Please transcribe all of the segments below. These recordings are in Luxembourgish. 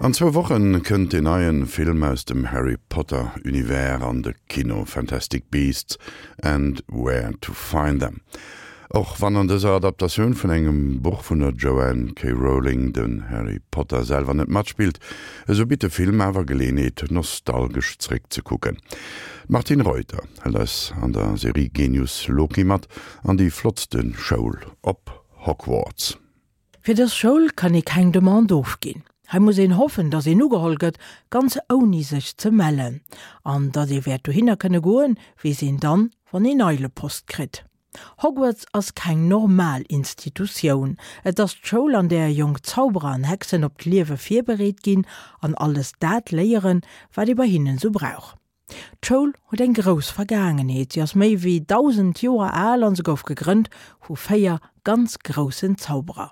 An zwou Wochen kënnt deen neien Film aus dem Harry Potter Univers an de Kino, Fantastic Beasts and Where to Find Them. Och wann an dëser Adaptatioun vun engem Buch vun der Joanne K. Rowling den Harry Potter selwer net matspillt, esou bitt de Film awer Geleeënheet nostalgesch zréck ze kucken. D'Martine Reuter hëlt eis an der Serie Genius Loki mat an déi flottste Schoul op Hogwarts. Fir dës Schoul kann ee keng Demande ofginn. Hei muss een hoffen, datt een ugeholl gëtt, ganz ouni sech ze mellen. An datt ee wäert dohinner kënne goen, weess een dann, wann een Eilepost kritt. Hogwarts ass keng normal Institutioun. Et ass d'Schoul, an där jonk Zauberer an Hexen op d'Liewe virbereet ginn an alles dat léieren, wat ee bei hinnen esou brauch. D'Schoul huet eng grouss Vergaangenheet, si ass méi wéi 1.000 Joer al an se gouf gegrënnt vu 4 ganz groussen Zauberer,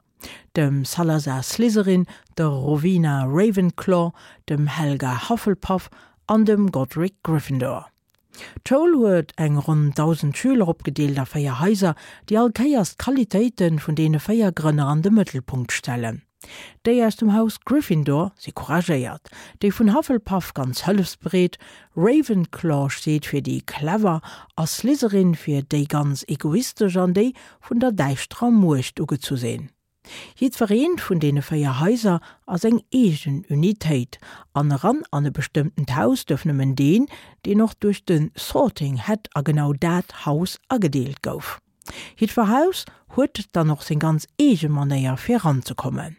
dem Salazar Slytherin, der Rowena Ravenclaw, dem Helga Hufflepuff an dem Godric Gryffindor. D'Schoul huet eng ronn 1.000 Schüler, opgedeelt a 4 Haiser, déi all Kéiers d'Qualitéite vun deene 4 Grënner an de Mëttelpunkt stellen. Déi aus dem Haus Gryffindor si couragéiert, déi vun Hufflepuff ganz hëllefsbereet, Ravenclaw steet fir déi clever a Slytherin fir déi ganz egoistesch an déi vun der däischterer Muecht ugezu sinn. Jiddwereent vun deene 4 Haiser ass eng eegen Unitéit an eran an e bestëmmtent Haus duerf nëmmen deen, deen och duerch de Sorting Hat a genau dat Haus agedeelt gouf. Jiddwer Haus huet dann och seng ganz eege Manéier fir eranzekommen.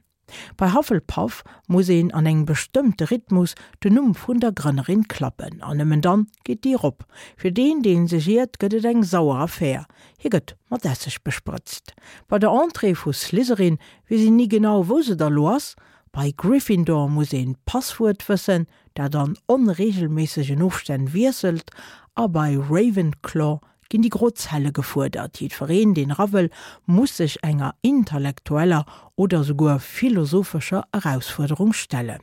Bei Hufflepuff muss een an engem bestëmmte Rhythmus den Numm vun der Grënnerin klappen an nëmmen dann geet d'Dier op. Fir deen, deen sech iert, gëtt et eng sauer Affär, hie gëtt mat Esseg besprëtzt. Bei der Entrée vu Slytherin weess een ni genau wou se da lo ass. Bei Gryffindor muss een d'Passwuert wëssen, dat an onreegelméissegen Ofstänn wiesselt a bei Ravenclaw ginn déi gro Zelle gefuerdert. Jiddwereen, deen era wëll, muss sech enger intellektueller oder souguer philosophescher Erausfuerderung stellen.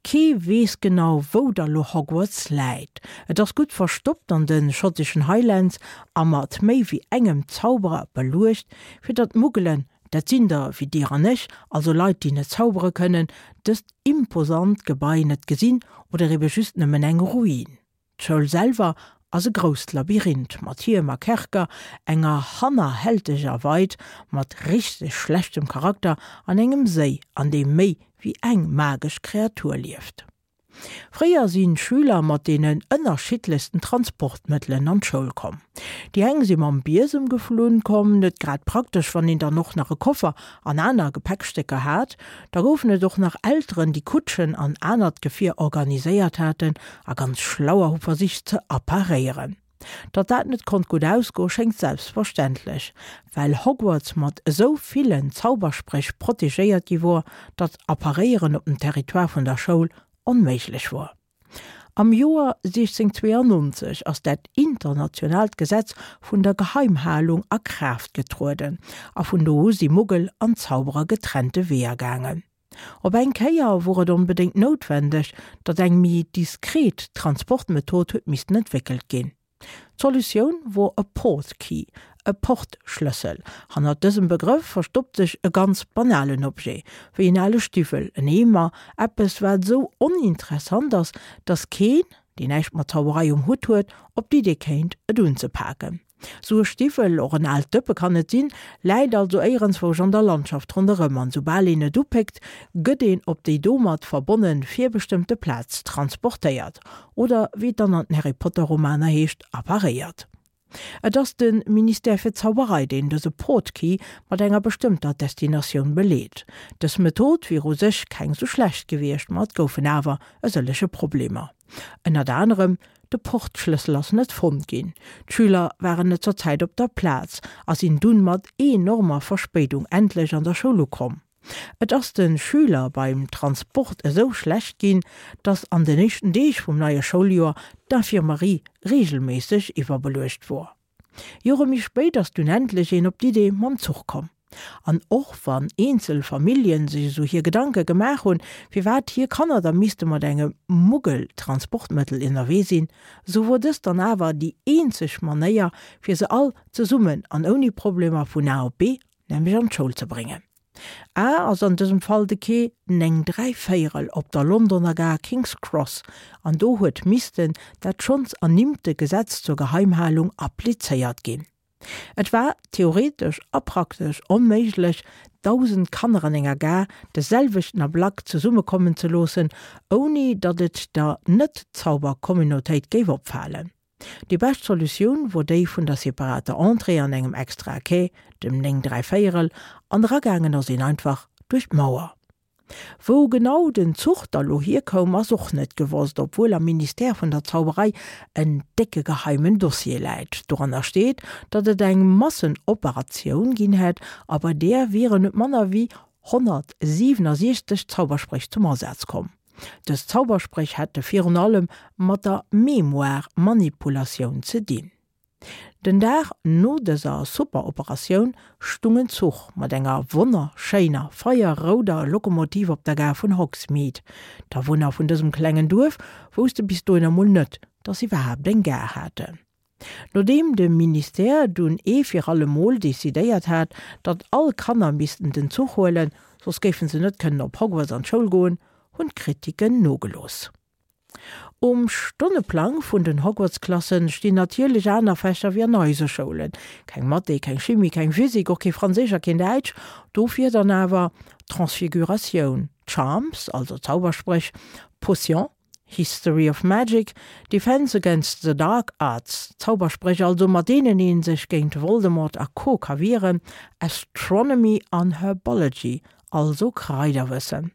Kee weess genau, wou da lo Hogwarts läit. Et ass gutt verstoppt an de schotteschen Highlands a mat méi wéi engem Zauberer beluecht, fir datt d'Muggelen, dat sinn der wéi dir an ech, also Leit, déi net zaubere kënnen, dëst imposant Gebai net gesinn oder ebe just nëmmen eng Ruin. D'Schoul selwer ass e grousst Labyrinth mat Hiem a Kerker, enger hannerhälteger Weid mat richteg schlechtem Charakter an engem Séi, an deem méi wéi eng magesch Kreatur lieft. Fréier sinn d'Schüler mat deenen ënnerschiddlechsten Transportmëttelen an d'Schoul komm. Déi eng si mam Biesem geflunn komm, net grad praktesch, wann een dann och nach e Koffer an aner Gepäckstécker hat. Da goufen et och nach Elteren, déi Kutschen an anert Gefier organiséiert haten a ganz schlauer hu versicht ze apparéieren. Datt dat net konnt gutt ausgoe schéngt selbstverständlech, well Hogwarts mat esou villen Zauberspréch protegéiert gi wor, datt Apparéieren op dem Territoire vun der Schoul onméiglech wor. Am Joer 1692 ass dat internationaalt Gesetz vun der Geheimhalung a Kraaft getrueden a vun do u si Muggel an Zauberer getrennte Weeër gaangen. Op eng Kéier wor et onbedéngt noutwendeg, datt eng méi diskret Transportmethod huet missten entwéckelt ginn. D'Solutioun wor e Portkey, e Portschlëssel. Hannert dësem Begrëff verstoppt sech e ganz banalen Objet, wéi en ale Stiwwel, en Eemer, eppes wat esou oninteressant ass, datt keen, deen näischt mat Zauberei um Hutt huet, op d'Idee kéint, et unzepaken. Sou e Stiwwel, och en aalt Dëppe kann et sinn, läit also éierenzwousch an der Landschaft ronderëm an soubal een et upéckt, gëtt een op déi domat verbonne virbestëmmte Plaz transportéiert, oder wéi et dann an den Harry Potter Romaner heescht, apparéiert. Et ass de Ministère fir Zauberei, deen dëse Portkey mat enger bestëmmter Destinatioun beleet. Dës Method wier u sech keng sou schlecht gewiescht, ma et goufen awer e sëllege Problemer. Ënnert anerem De Portschlëssel ass net fonnt ginn, d'Schüler waren net zur Zäit op der Plaz a sinn dunn mat enormer Verspéidung endlech an der Schoul ukomm. Et ass de Schüler beim Transport esou schlecht ginn, dass an den éischten Deeg vum neie Schouljoer d'Infirmerie reegelméisseg iwwerbeluecht wor. Jore méi spéit ass dunn endlech een op d'Idee mam Zuch komm. An och wann eenzel Familljen sech esou hir Gedanke gemaach hunn, firwat hir Kanner da misste mat engem Muggel-Transportmëttel ënnerwee sinn, esou wor dëst dann awer déi eenzeg Manéier, fir se all zesummen an ouni Problemer vun A op B, nämlech an d'Schoul ze bréngen. A ass an dësem Fall de Quai 9 dräivéierel op der Londoner Gare King's Cross, an do huet missten dat schonns ernimmte Gesetz zur Geheimhalung applizéiert ginn. Et war theoretesch a praktesch onméiglech, 1.000 Kanner an enger Gare de selwechten Ablack zesummekommen ze loossen, ouni datt et der Net-Zauber-Communautéit géif opfalen. Déi bescht Solutioun wor déi vun der separater Entrée an engem extrae Quai, dem 9 dräivéierel, an eragaangen ass een einfach duerch d'Mauer. Wou genau den Zuch da lo hierkoum ass och net gewosst, obwuel am Ministère vun der Zauberei en décke geheimen Dossier läit. Doranner steet, datt et eng Massenoperatioun ginn hätt a bei där wieren net manner wéi 167 Zauberspréch zum Asaz komm. Dës Zauberspréch hätte virun allem mat der Mémoire-Manipulatioun ze dinn. Den Dag no dëser Superoperatioun stung en Zuch mat enger wonnerschéiner feierrouder Lokomotiv op der Gare vun Hogsmeade. D'Awunner vun dësem klengen Duerf wousste bis dohinner mol net, dass se iwwerhaapt eng Gare haten. Nodeem de Ministère dunn ee fir alle Mol decidéiert hat, datt all Kanner missten den Zuch huelen, soss géifen se net kënnen op Hogwarts an d'Schoul goen, hunn d'Kritiken nogelooss. Um Stonneplang vun den Hogwarts-Klassen stinn natierlech aner Fächer wéi an eise Schoulen. Keng Mathé, keng Chimie, keng Physik, och kee Franséisch a keen Däitsch. Dofir dann awer Transfiguratioun, Charms, also Zauberspréch, Potions, History of Magic, Defense against the Dark Arts, Zauberspréch also mat deenen ee sech géint Voldemort a Co. Ka wieren, Astronomy an Herbology, also Kraiderwëssen.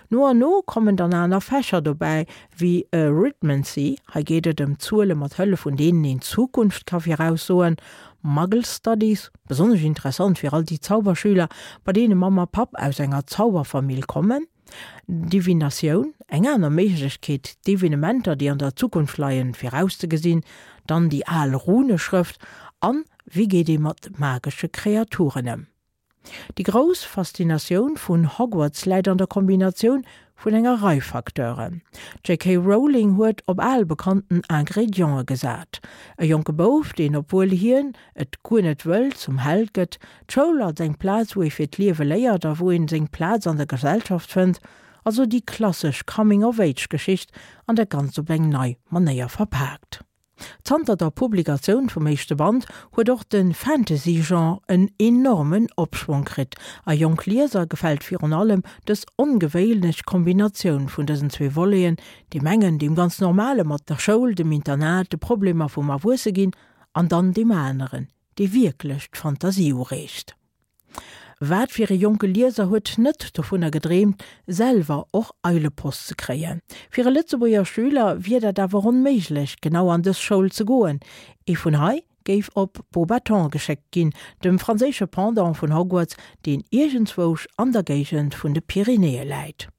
No an no kommen dann aner Fächer dobäi, wéi Arithmancy, hei geet et ëm Zuele mat Hëllef vun deenen een d'Zukunft ka viraussoen, Muggle Studies, besonnesch interessant fir all déi Zauberschüler, bei deene Mamm a Papp aus enger Zauberfamill kommen, Divinatioun, eng aner Méiglechkeet d'Evenementer, déi an der Zukunft leien, virauszegesinn, dann déi al Runeschrëft an wéi geet ee mat magesche Kreaturen ëm. Déi grouss Faszinatioun vun Hogwarts läit an der Kombinatioun vun enger Rei Facteuren. D'JK. Rowling huet op al bekannten Ingrediente gesat, e jonke Bouf, deen, obwuel hien et guer net wëll, zum Held gëtt, d'Schoul als eng Plaz, wou ee fir d'Liewe léiert a wou een seng Plaz an der Gesellschaft fënnt, also déi klassesch Coming-of-Age-Geschicht an dat Ganzt op eng nei Manéier verpaakt. Zanter der Publikatioun vum éischte Band huet och de Fantasy-Genre en enormen Opschwong kritt a jonk Lieser gefält virun allem dës ongewéinlech Kombinatioun vun dësen zwee Voleten, deem engen, deem ganz normale mat der Schoul, dem Internat, de Problemer vum Erwuesseginn, an dann deem aneren, dee wierklech d'Fantasie ureegt. Wat fir e jonke Lieser huet net dovunner gedreemt, selwer och Eilepost ze kréien? Fir e Lëtzebuerger Schüler wier dat awer onméiglech, genau an dës Schoul ze goen. Ee vun hei géif op Beauxbatons geschéckt ginn, dem franséische Pendant vun Hogwarts, deen iergendzwousch an der Géigend vun de Pyrenäe läit.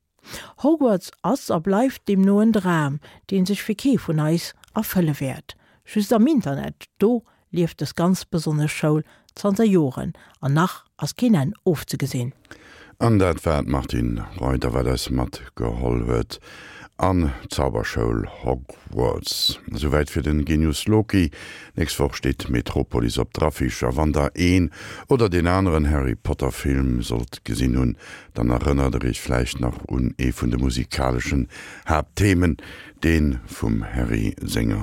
Hogwarts ass a bleift deemno en Dram, dee sech fir kee vun eis erfëlle wäert. Just am Internet, do lieft dës ganz besonnesch Schoul zanter Joren an nach ass keen Enn ofzegesinn. An dat war d'Martine Reuter, wat eis matgeholl huet an d'Zauberschoul Hogwarts. Esouwäit fir den Genius Loki. Nächst Woch steet Metropolis op der Affiche a wann der een oder deen aneren Harry Potter Film sollt gesinn hunn, Dann erënnert der iech vläicht nach un ee vun de musikaleschen Haaptthemen, dee vum Harry senger.